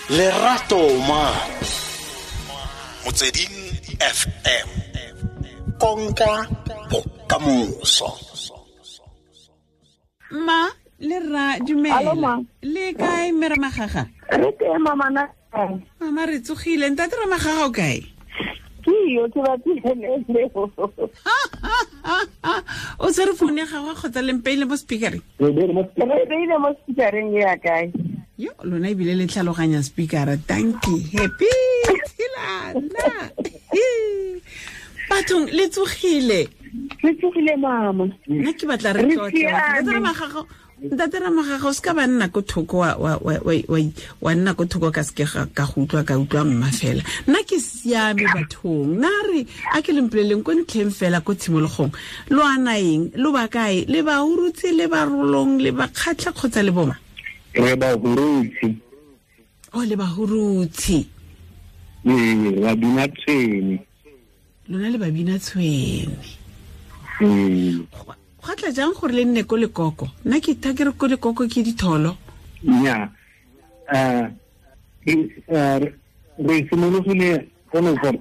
Lerato ma Motsweding FM konka bokamoso. Ma le rra, dumela. Le kae, mme Ramagaga? Re teng, mama na. Mama, re tsogile. Ntate Ramagaga o kae? Ke yo ke batlile leo. O tshwere founu ya gagwe kgotsa le mpeile mo speakereng? Re beile mo speakereng ya kae? Yo, lona ebile le tlhaloganya speakera. Dankie. Happy Tshilana. Bathong, le tsogile? Re tsogile, mama. Nna ke batla re tlotle. Ntate Ramagaga, o se ka ba nna ko thoko, wa nna ko thoko ka seke ka go utlwa, ka utlwa mma fela. Nna ke siame, bathong. Nna re a ke lempoleleng ko ntlheng fela, ko tshimologong. Lo ana eng? Lo ba kae? Le ba Hurutse, le ba Rolong, le ba Kgatlha kgotsa le boma? Re ba Hurutse. Oh, le ba Hurutse. Ee, ba bina tshwene. Lona le ba bina tshwene. Gwa tla jang gore le nne ko Lekoko? Nna ke tha ke re ko Lekoko ke ditholo. Nya, re simologile go ne gore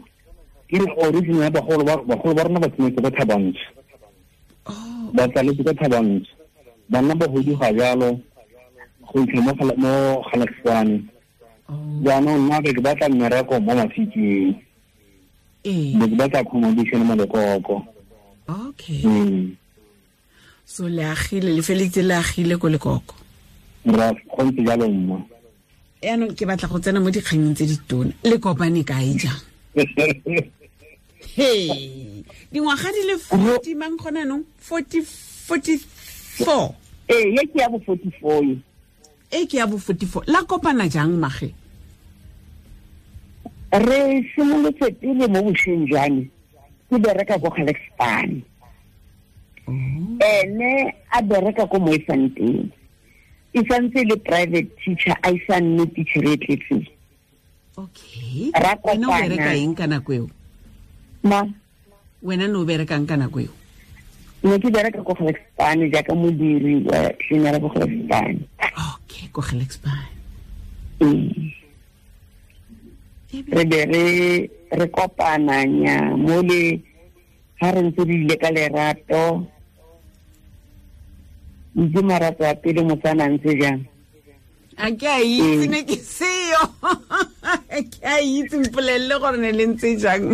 ke re origin ya bagolo ba rona ba tshwanetse ko Thabantsho. Ba tsaletse ko Thabantsho. Banna ba huduga jalo go itlha mo Galaxwane. Jaanong nna ke batla mmereko mo Mafikeng. Be ke batla accommodation mo Lekoko. Okay. So le agile, le feletse le agile ko Lekoko. Ra go ntse jalo, mma. Yaanong ke batla go tsena mo dikganyeng tse ditona. Le kopane kae jang? Hey, dingwaga di le 40 mang gona nong? 40, 44. Ee, ye ke ya bo 44 ye. E ke ya bo 44. La kopana jang, mage? Re simolotse pele mo bošweng jwa me, ke bereka ko Galexpan. Ene a bereka ko Moefanteng. E santse le private teacher, a isa nne teacher e tletseng. Okay. Ra Wena o kopana. bereka eng ka nako eo? Ma? Wena no berekang ka nako eo? Ne ke bereka ko Galexpan jaaka modiri wa cleaner ko Galexpan. Okay, ko Galexpan. Re be re kopana nya mo le ha re ntse re ile ka lerato. Itse marato a pele motsana ntse jang? A ke a itse, ne ke seo. Ke a itse, mpolelele gore ne le ntse jang.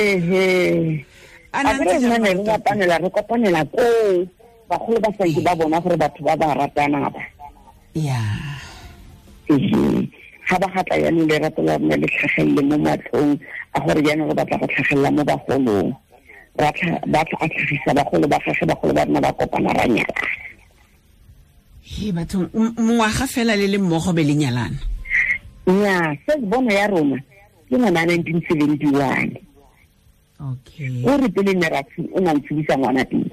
Ehe. A na A ntse re jang nna ne re marato a pele? ratanela, re kopanela koo. Bagolo ba santse ba bona gore batho ba ba ratana ba. Ehe. Ga ba gatla jaanong lerato la rona le tlhagelele mo matlhong a gore jaanong re batla go tlhagelela mo bagolong. Ba tla a tlhagisa bagolo ba gagwe, bagolo ba rona ba kopana ra nyalana. He, bathong, mongwaga fela le le mmogo be le nyalana? Nnyaa, se bono ya rona ke ngwana 1971. Okay. O re pele ne ra o na ntshedisa ngwana pele.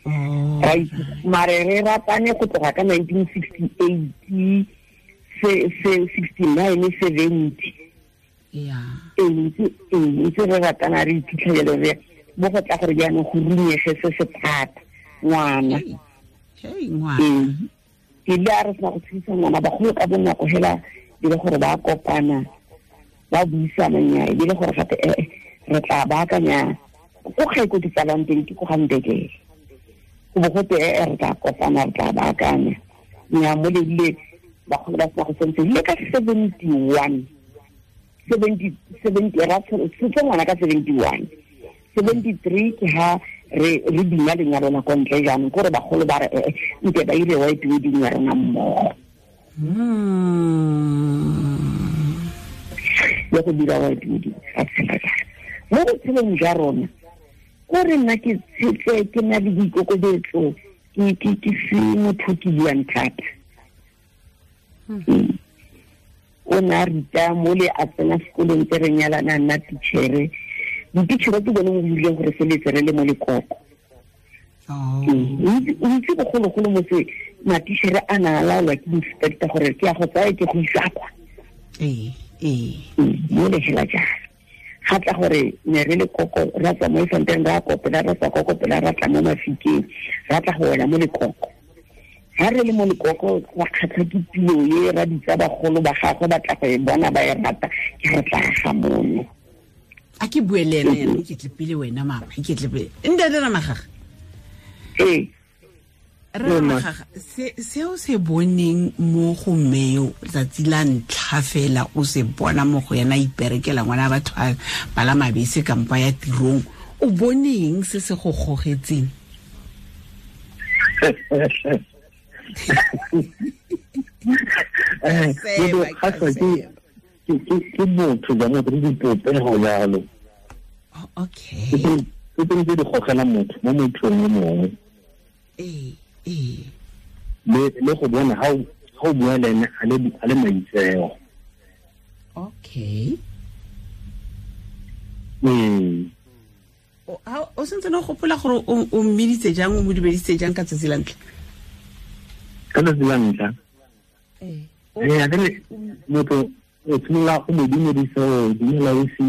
Oh. Ra itse, mare re ratane go tloga ka 1968, se, 69, 70. Ee, ntse re ratana, re iphitlhela re mo go tla gore jaanong go runyege se se thata, ngwana. Hey, hey, ngwana. Ee. Ke ile a re sena go tshedisa ngwana, bagolo ka bonako hela e le gore ba kopana, ba buisana nya, e le gore gape, re tla baakanya ko gae ko ke tsalang teng, ke ko ga Ndekele. Go bo gote, re tla kopana, re tla baakanya. Nya, mo le ile bagolo ba sena go sentse, le ka 71, 70, 70, ra tshotse ngwana ka 71. 73 ke ha re bina lenyalo la ko ntle jaanong, ke gore bagolo ba re, nke ba ire white wedding ya rona mmogo. Ya go dira white wedding, ra tshela jalo. Mo botshelong jwa rona, ko re nna ke tshetse, ke na le boikokobetso, ke se motho ke buang thata. O ne a ruta mo le a tsena sekolong tse re nyalana, nna teachere. Diteachere ke bone mo buileng gore feletse re le mo Lekoko. O itse bogologolo motse matichere a na a laolwa ke inspector gore ke ya go tsaya ke go isa kwa. Ee. Mo le hela jalo. Ga tla gore ne re le koko ra tswa mo efanteng ra kopela ra tswa kokopela ra tla mo Mafikeng ra tla go wela mo Lekoko. Ha re le mo Lekoko ra kgatlha ke pilo e ra ditsa bagolo ba gagwe ba tla go e bona ba e rata ke re tla ga mono. A ke bue le ena yana ke tle pele wena mama ke tle pele ntate Ramagaga. Ee Ramagaga seo se boneng mo go mmeo tsatsi la ntlha fela o se bona mo go yena iperekela ngwana batho a bala mabese kampa ya tirong o boneng se se go gogetseng? Ke motho ja motho le dipopego jalo. Okay. Ke tse di gogela motho mo mothong yo mongwe. Ee. Le go bona ha o bua le ene a le maitseo. Okay. O sentse no gopola gore o mmiditse jang o mo dumeditse jang ka tsatsi la ntlha? Ka tsatsi la ntlha? Ee. Ee, akere motho o tshimolola go mo dumedisa o dumela o se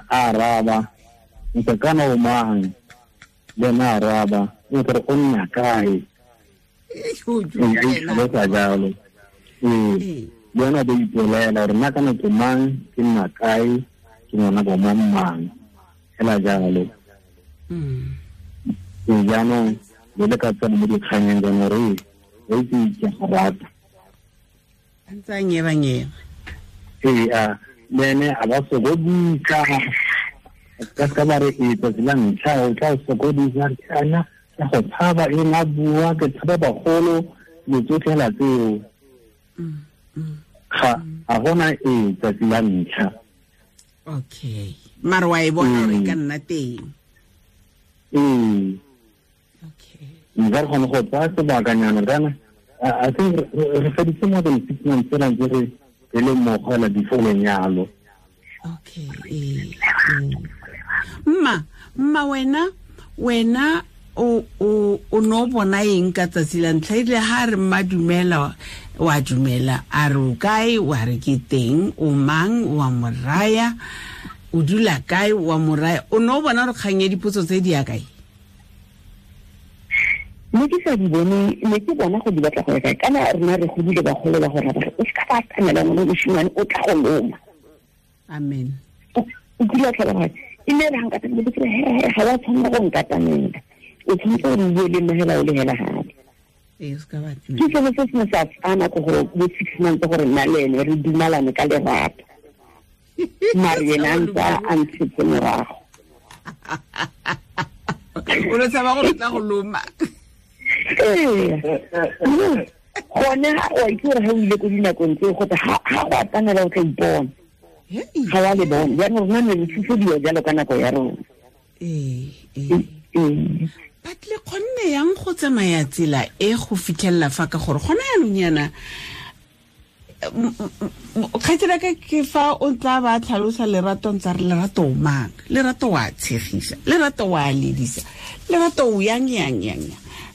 a araba ntse kana o mang le ena a araba o tle o nna kae e jalo. Ee, le ena ba ipolela gore nna kana ke mang ke nna kae ke ngwana bo mang mang hela jalo. Ee jaanong le le ka tsena mo dikganyeng jaanong gore o itse ke go rata. A ntse a nyeba-nyeba. Ee, a le ene a ba sokodisa ka se ka ba re e tsatsi la ntlha o tla sokodisa kana ke go tshaba e nga bua ke tshaba bagolo le tsotlhe hela tseo. Ga a gona e tsatsi la ntlha. Okay. Mara wa e bona gore e ka nna teng. Ee. Okay. Nka re kgone go tsaya sebakanyana kana I think re feditse more than 6 months fela ntse re le mmogo hela before lenyalo. Okay. Mma wena o no bona eng ka tsatsi la ntlha ile ha re mma dumela wa dumela a re o kae wa re ke teng o mang wa moraya o dula kae wa moraya o no bona re kgang ya dipotso tse di ya kae? Ne ke sa di bone ne ke bona go di batla go ya kae kana rena re godile bagolo ba go rata o se ka ba atamela ngwana moshimane o tla go loma. Amen. O kile wa tlhaloganya e ne re ga nkatamela ke re he ga wa tshwanela go nkatamela o tshwanetse gore o bue le nna hela o le hela gape. Ke sone se se ne sa tsaya nako gore bo 6 months gore nna le ene re dumalane ka lerato mare ena a ntse a ntshetse morago. O lo tshaba gore o tla go loma. Ee, gone wa itse gore ga o ile ko dinakong tseo gote ga go atamela o tla ipona ga wa le bona jaanong rona ne re tshosediwa jalo ka nako ya rona. Ee. But le kgonne yang go tsamaya tsela e go fitlhelela fa ka gore gona yanong yana kgaitsela ka ke fa o tla ba tlhalosa lerato ntse re lerato o mang lerato wa tshegisa lerato wa ledisa lerato o yang yang yang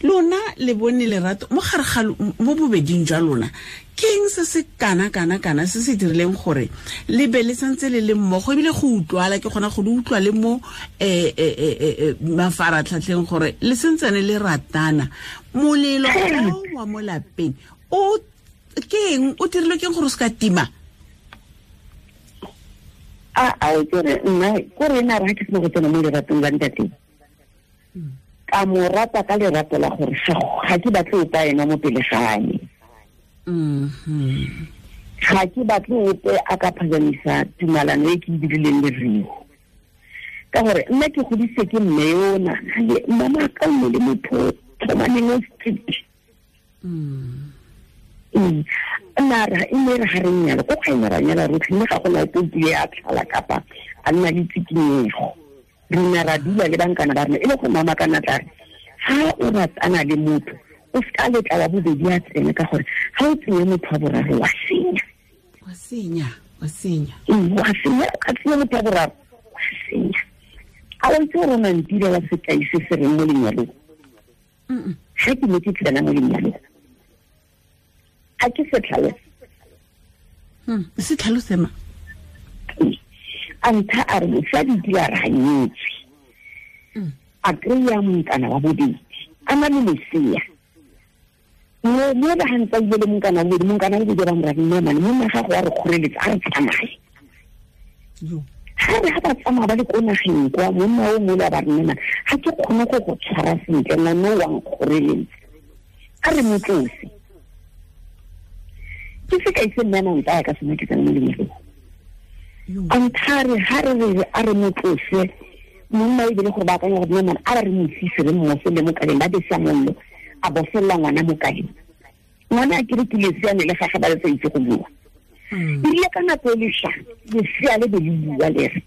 lona le bone lerato mo gare ga mo bobeding jwa lona ke eng se se kana kana kana se se dirileng gore le be le santse le le mmogo ebile go utlwala ke kgona go le utlwa le mo mafaratlhatlheng gore le sentsane le ratana molelo o wa mo lapeng o ke eng o dirilwe ke eng gore o se ka tima? A o tsere nna ko re nna re ha ke sena go tsena mo leratong la ntate ka mo rata ka lerato la gore ga ke batle ope ena mo pele ga me. Ga ke batle ope a ka phazamisa tumalano e ke e dirileng le Rio ka gore nna ke godise ke mme yona mama ka nne le motho tlhomaneng o strict. Nna re e ne re ga re nyala ko ga ene ra nyala rotlhe mme ga gona ope o kile a tlhala kapa a nna le tsikinyego. Re ne ra dula le bankana ba rona e le go mama kana tla re ha o ratana le motho o se ka letla wa bobedi a tsene ka gore ga o tsenye motho wa boraro wa senya. Wa senya, wa senya. Wa senya, o ka tsenya motho wa boraro wa senya. A o itse gore o nantile wa sekai se se reng mo lenyalong? Ga ke ne ke tsena mo lenyalong a ke se tlhalose. Se tlhalose ma? A ntha a re mosadi ke a re ganyetswe. A kry-a monkana wa bobedi a na le lesea. Mo ba gantsa ile le monkana wa bobedi, monkana wa bobedi ba mo ra nna mane monna gago wa re kgoreletsa a re tsamaye. Ga re ga ba tsamaya ba le ko nageng kwa, monna o mole a ba re nna ga ke kgone go go tshwara sentle, ngwane o wa nkgoreletsa, a re mo tlose. Ke sekai se mme a nang tsaya ka sone ke tsena mo lenyalong. A nthare ga re re a re mo tlose, monna e bile gore ba akanya gore nna a re mo fise re mmosele mo kaleng, ba besa mollo, a bofelela ngwana mo kaleng. Ngwana a kere ke lesea ne le gage ba le sa itse go bua. Erile ka nako e lešwa, lesea le be le bua le re,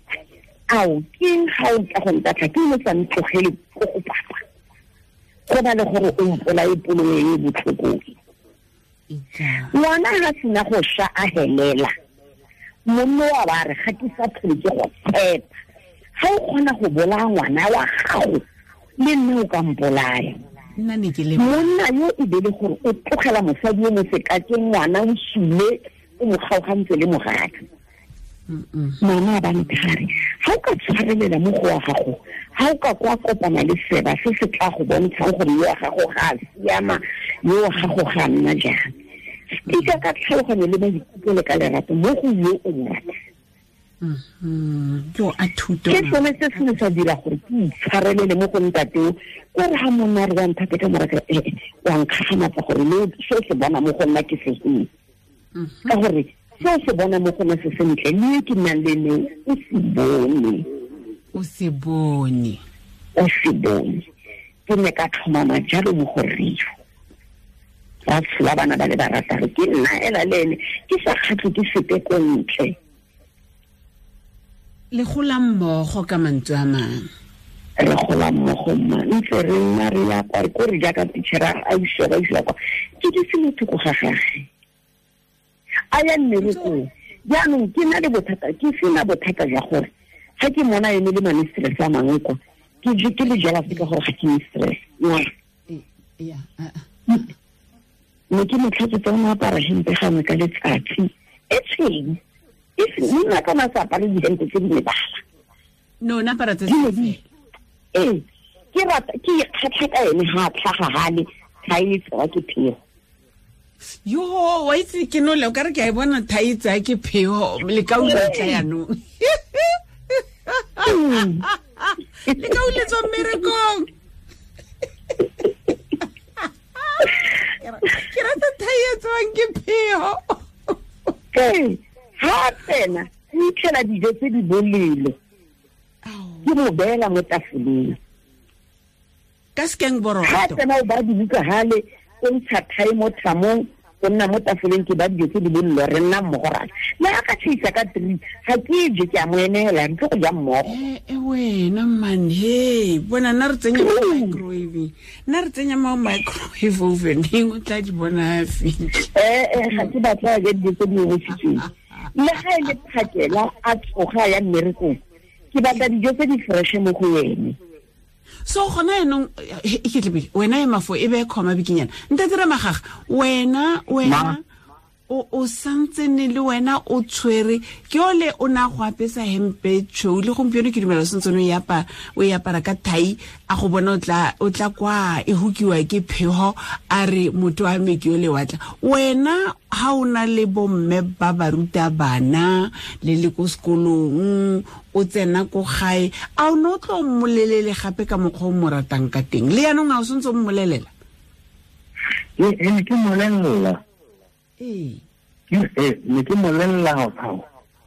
ao ke eng ga o tla go ntatlha, ke eng o sa ntlogele ko go papa, go ba le gore o mpolae polo e e botlhoko. Ngwana ga sena go sha a helela, monna wa ba re ga ke sa tlhole ke go tshepa. Ga o kgona go bolaya ngwana wa gago, le nna o ka mpolaya. Monna yo e be le gore o tlogela mosadi yo mo sekakeng, ngwana o sule, o mo kgaogantse le mogatse. Mama a ba nthare, ga o ka tshwarelela mo go wa gago, ga o ka kwa kopana le seba se se tla go bontshang gore yo wa gago ga a siama, yo wa gago ga a nna jang. Stika ka tlhaloganyo le maikutlo le ka lerato mo go yo o mo ratang. Ke sone se se ne sa dira gore ke itshwarelele mo go ntateo, ko re ga monna re wa nthate ka moraka, wa nkgagamatsa gore le se se bona mo go nna ke se eng. Ka gore se se bona mo go nna se sentle, le ke nnang le ene o se bone. O se bone. O se bone. Ke ne ka tlhomama jalo mo go rrio. Ba tshola bana ba le barataro, ke nna ela le ene, ke sa kgatlhe ke sepe ko ntle. Le gola mmogo ka mantswe a mangwe. Re gola mmogo mma, ntse re nna re ya kwa, ko re jaaka teachera a isiwa ba isiwa kwa, ke dutse mo thoko ga gage. A ya mmerekong. Jaanong ke na le bothata, ke sena bothata jwa gore ga ke mona ene le ma-mistress a mangwe kwa, ke le jealous ka gore ga ke mistress. Ne ke mo tlhatsetsa o ne apara hempe gangwe ka letsatsi e tshweu. Monna ka na sa apare dihempe tse di mebala. No, na apara tse se. Ee, ke rata ke ikgatlha ka ene ga a tlhaga gale, ga e tsewa ke phego. Yo, wa itse ke no le o ka re ke a e bona thai tsa ke phego, le ka utlwa tla yanong. Le ka uletswa mmerekong. Ke rata thai e tswang ke phego. Ee, ga tsena, o itlhela dijo tse di bolelo. Ke mo beela mo tafoleng. Ka sekeng borotho. Ga tsena o ba dibuka gale, o ntsha thai mo thamong, o nna mo tafoleng ke ba dijo tse di bolelo, re nna mmogo ra. Le ga ka tshisa ka 3, ga ke je ke a mo emela, re tlo go ja mmogo. Wena man, hey, bona nna re tsenya mo microwave. Nna re tsenya mo microwave oven, o tla di bona a fitlha. Ga ke batla ja dijo tse di omisitsweng. Le ga e le phakela a tsoga ya mmerekong, ke batla dijo tse di fresh mo go ene. So gona yanong e ke tlebile wena e mafo e be khoma bikinyana. Ntate Ramagaga, wena o santse ne le wena o tshwere ke ole o na go apesa hempe tshweu le gompieno ke dumela sentse no ya o e apara ka thai, a go bona o tla kwa e hukiwa ke phego, a re motho wa me ke ole wa tla. Wena ha o na le bomme ba ba ruta bana le le ko sekolong, o tsena ko gae, a o no tlo mmolelele gape ka mokgwa o mo ratang ka teng? Le yanong a o sentse o mmolelela? Ee, ke mmolelela. Ee. Ne ke mmolelela gago.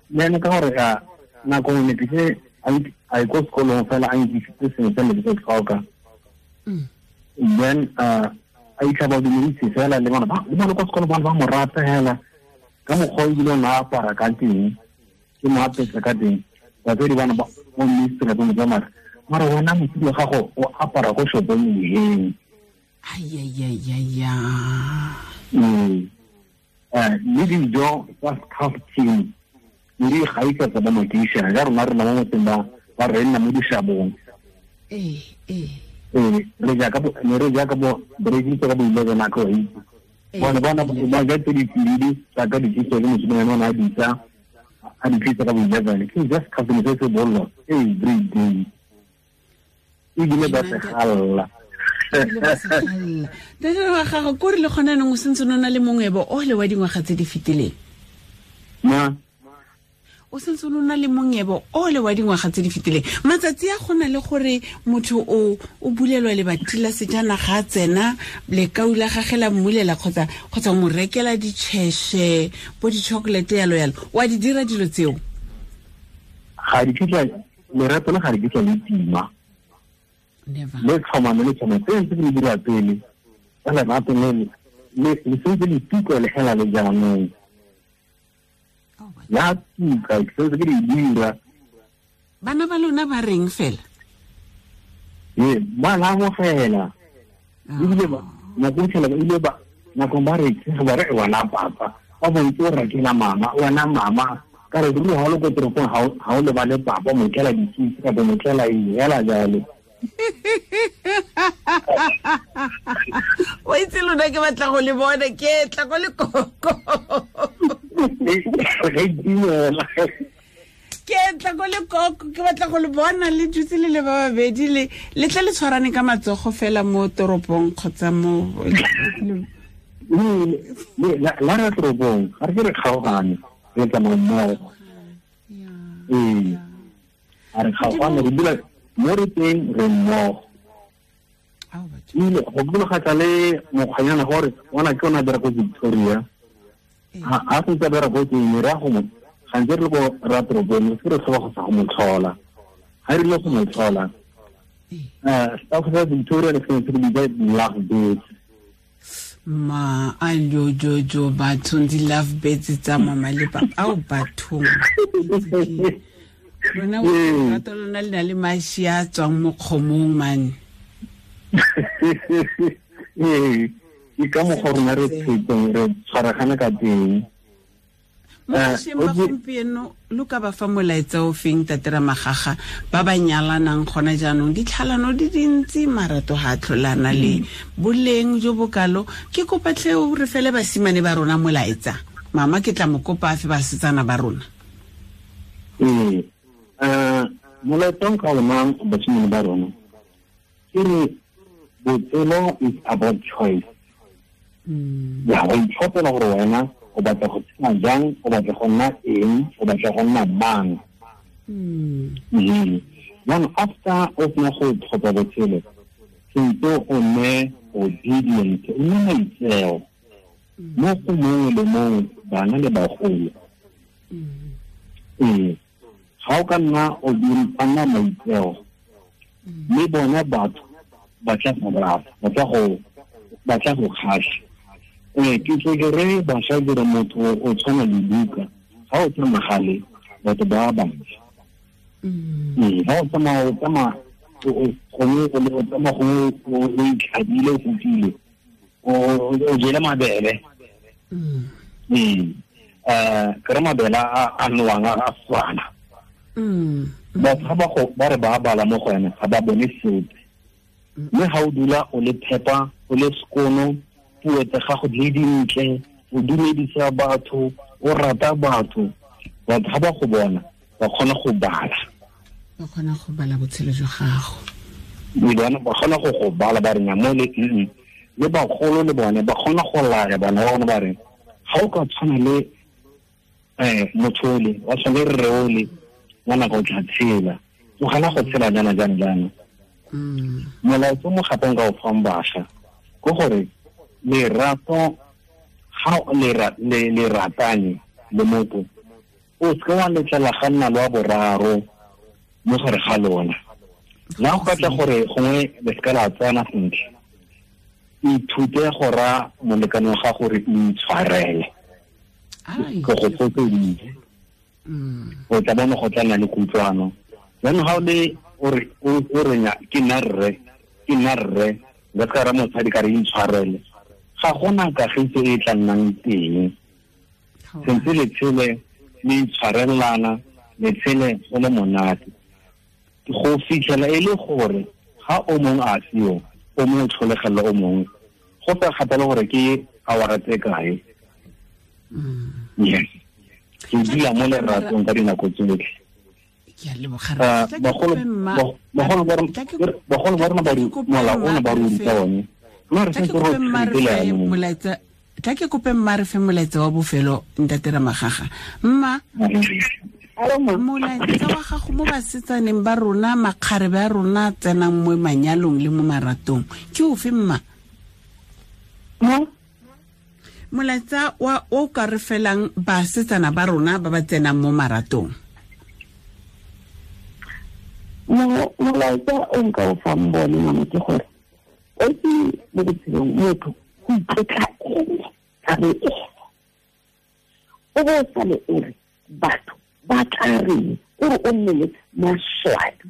Le ene ka gore ga nako nngwe ne ke se a ye ko sekolong fela a nkisitse sengwe se ne ke se tlhoka. Then a itlha ba dumedise fela le bona ba le bona kwa sekolong ba mo rata hela ka mokgwa o ebile o ne a apara ka teng, ke mo apesa ka teng. Batswadi bana ba mo mistress ba mo tsamaya, mara wena mosadi wa gago o apara ko shopong eng? Ai. Le dijo tsa staff team le di gaisa tsa ba makeišene ja rona re nna mo motseng ba re nna mo dishabong. Re jaaka bo ne re jaaka bo re ka bo 11 nako e. Bona ba ja tse di tsididi tsa ka di tse le mosimane ona a ditsa a di tlisa ka bo 11 ke just customer se se bollo every day ebile ba se galla. Ntate Ramagaga, ko re le gona neng o sentse o na le mongwebo o le wa dingwaga tse di fetileng? Ma o sentse o na le mongwebo o le wa dingwaga tse di fetileng. Matsatsi a gona le gore motho o bulelwa lebati la sejanaga a tsena lekau la gagwe la mmulela kgotsa o mo rekela ditšheshe bo di-chocolate yalo yalo, wa di dira dilo tseo? Ga di kitla lerato le ga di kitla le tima. Le tlhomame le tlhomame tse ntse di dira pele ka lerato le le sentse le tuka le hela le jaanong. Ya tuka ke sentse ke di dira. Bana ba lona ba reng fela? Ee, ba la amogela. Ebile ba nako e ile ba nako ba re ba re wena papa ba bontse o rekela mama wena mama ka re ruri ha o le ko toropong ha o lebale papa mo tlela dikitse kapa mo tlela eng hela jalo. O itse lona ke batla go le bona ke tla go le koko. Ke tla go le koko ke batla go le bona le dutse le le ba babedi le le tle le tshwarane ka matsogo fela mo toropong kgotsa mo la re toropong ga re re kgaogane re tsamaya mmogo. Ee, a re kgaogane re dula mo re teng re mmogo. Ebile go bologatsa le mokgwanyana gore ona ke ona dira ko Victoria a sentse a dira ko teng re ya go mo gantsi re le ko ra toropong se re tlhoba go sa go mo tlhola. Ga re ile go mo tlhola staff sa Victoria le sentse re bitsa love birds. Ma a jojojo bathong di-love birds tsa mama le papa ao bathong. Rona lerato lona le na le mashi a tswang mo kgomong mane. Ee, ke ka mokgwa rona re tshetseng re tshwaragane ka teng. Mo bašweng ba gompieno lo ka ba fa molaetsa o feng Ntate Ramagaga ba ba nyalanang gona jaanong? Ditlhalano di dintsi, marato ga a tlholana le boleng jo bokalo. Ke kopa tlhe o re fele basimane ba rona molaetsa. Mama ke tla mo kopa a fe basetsana ba rona. Ee, molaetsa o nka o nayang basimane ba rona ke re botshelo is about choice. Ya go itlhophela gore wena o batla go tshela jang, o batla go nna eng, o batla go nna mang. Jaanong after o sena go tlhopha botshelo, sentse o nne obedient, o nne maitseo mo go mongwe le mongwe, bana le bagolo. Ee, ga o ka nna o nna maitseo mme bona batho ba tla go rata, ba tla go kgatlha. Ee, ke tle ke re bašwa dire motho o tshwana le buka, ga o tsamaya gale batho ba bantsi. Ee, ga o tsamaya o tsamaya gongwe o tsamaya gongwe o itlhabile o fofile o jele mabele. Ee, ke re mabele a nowang a swana. Batho ga ba re ba bala mo go ene ga ba bone sepe. Mme ga o dula o le phepa, o le sekono, puo tsa gago di dintle, o dumedisa batho, o rata batho, batho ga ba go bona ba kgona go bala. Ba kgona go bala botshelo jwa gago. Ba kgona go bala ba re nya mo le le bagolo le bone ba kgona go laya bana ba bone ba re ga o ka tshwana le motho ole, wa tshwana le rre ole, ngwana ka o tla tshela, tlogela go tshela jaana jaana jaana. Molaetsa mo gape nka o fang bašwa ke gore lerato ga le ratane le motho o seke wa letlela ga nna le wa boraro mo gare ga lona. La go ka tla gore gongwe le seka la tsena sentle, ithute go raya molekane wa gago gore o itshwarele. Ke go fotseditse. O tla bona go tla nna le kutlwano. Jaanong ga o le o re ke nna rre, nka se ka ra mosadi ka re intshwarele, ga gona kagiso e tla nnang teng. Sentse le tshele le itshwarelana, le tshele go le monate. Go fitlhela e le gore ga o mongwe a seo, o mongwe o tlholegela o mongwe, go sa kgathale gore ke awara tse kae. Yes. Ke dula mo leratong ka dinako tsotlhe. Ke a leboga. Bagolo ba rona ba mola ona ba ruta one. Mme re santse re molaetsa, tla ke kope mma re fe molaetsa wa bofelo, ntate Ramagaga. Mma, molaetsa wa gago mo basetsaneng ba rona, makgarebe a rona tsenang mo manyalong le mo maratong, ke ofe mma? Molaetsa wa o ka re felang basetsana ba rona ba ba tsenang mo maratong. Molaetsa o nka o fang bone mama ke gore o itse mo botshelong motho go itlotla ene ka bo ene, o bo o sale o re batho ba tla reng, o re o nne le maswabi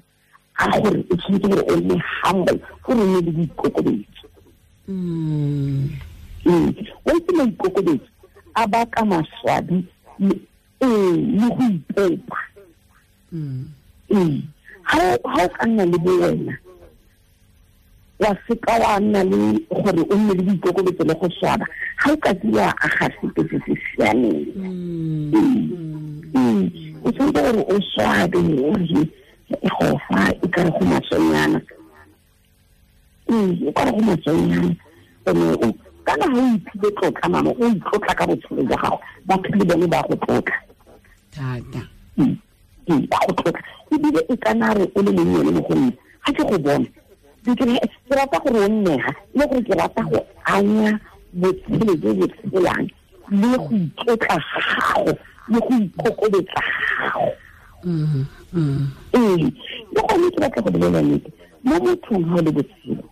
a gore o tshwanetse gore o nne humble, gore o nne le boikokobetso. O itse maikokobetso a baka maswabi le go ipopa. Ha o ka nna le bo wena, wa seka wa nna le gore o nne le boikokobetso le go swaba, ga o ka ke wa aga sepe se se siameng. O tshwanetse gore o swabe, o re go fa e ka re go masonyana. O ka re go masonyana. Ene kana ha o iphile tlotla mama, o itlotla ka botshelo jwa gago, batho le bone ba go tlotla. Thata. Ba go tlotla. Ebile e kana re o le monnyane mo go nna, ga ke go bona, ke rata gore o nnega, le gore ke rata go anya botshelo jo bo tshelang, le go itlotla ga gago, le go ikokobetsa ga gago. Le gone ke batla go bolela nnete, mo mothong ga o le botshelo,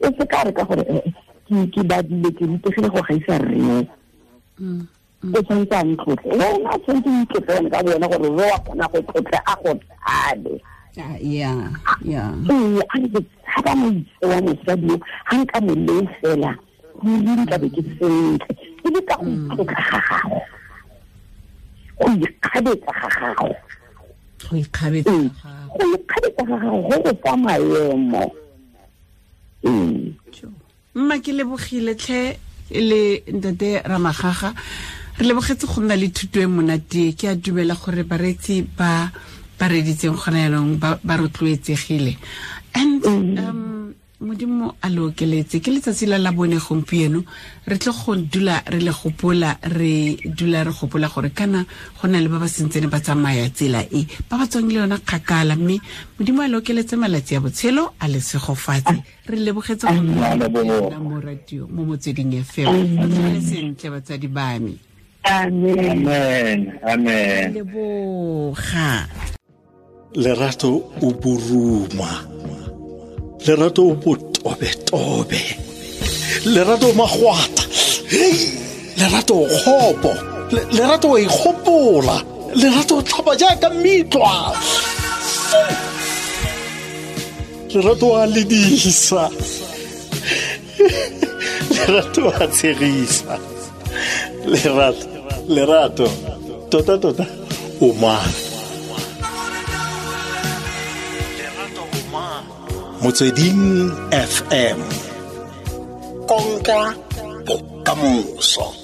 o se ka re ka gore ke badile, ke rutegile go gaisa rreo, o tshwanetse a ntlotle. Wena o tshwanetse o itlotle wena ka bo wena, gore re wa kgona go tlotle a go tshabe. Ee, a re ke tshaba moitse wa mosadi yo, ga nka mo leo fela, ruri nka be ke sentle. E le ka go itlotla ga gago, go ikgabetsa ga gago. Go ikgabetsa go ikgabetsa ga gago go go fa maemo. Mma, ke lebogile tlhe le ntate Ramagaga. Re lebogetse go nna le thuto e monate. Ke a dumela gore bareetsi ba ba reditseng gona jaanong ba rotloetsegile. And Modimo a le okeletse. Ke letsatsi la Labone gompieno, re tle go dula re le gopola, re dula re gopola gore kana go na le ba ba sentsene ba tsamaya tsela e, ba ba tswang le yona kgakala, mme Modimo a le okeletse malatsi a botshelo, a le segofatse. Re lebogetse go nna mo radio mo Motsweding FM. Re sentle batsadi ba me. Amen. Amen. Leboga. Lerato o boruma, lerato o botobetobe, lerato o magwata, lerato o kgopo, lerato o ikgopola, lerato o tlhapa jaaka metlwa, lerato a ledisa, lerato a tshegisa, lerato, lerato, tota tota o mang? Motsweding FM, konka bokamoso.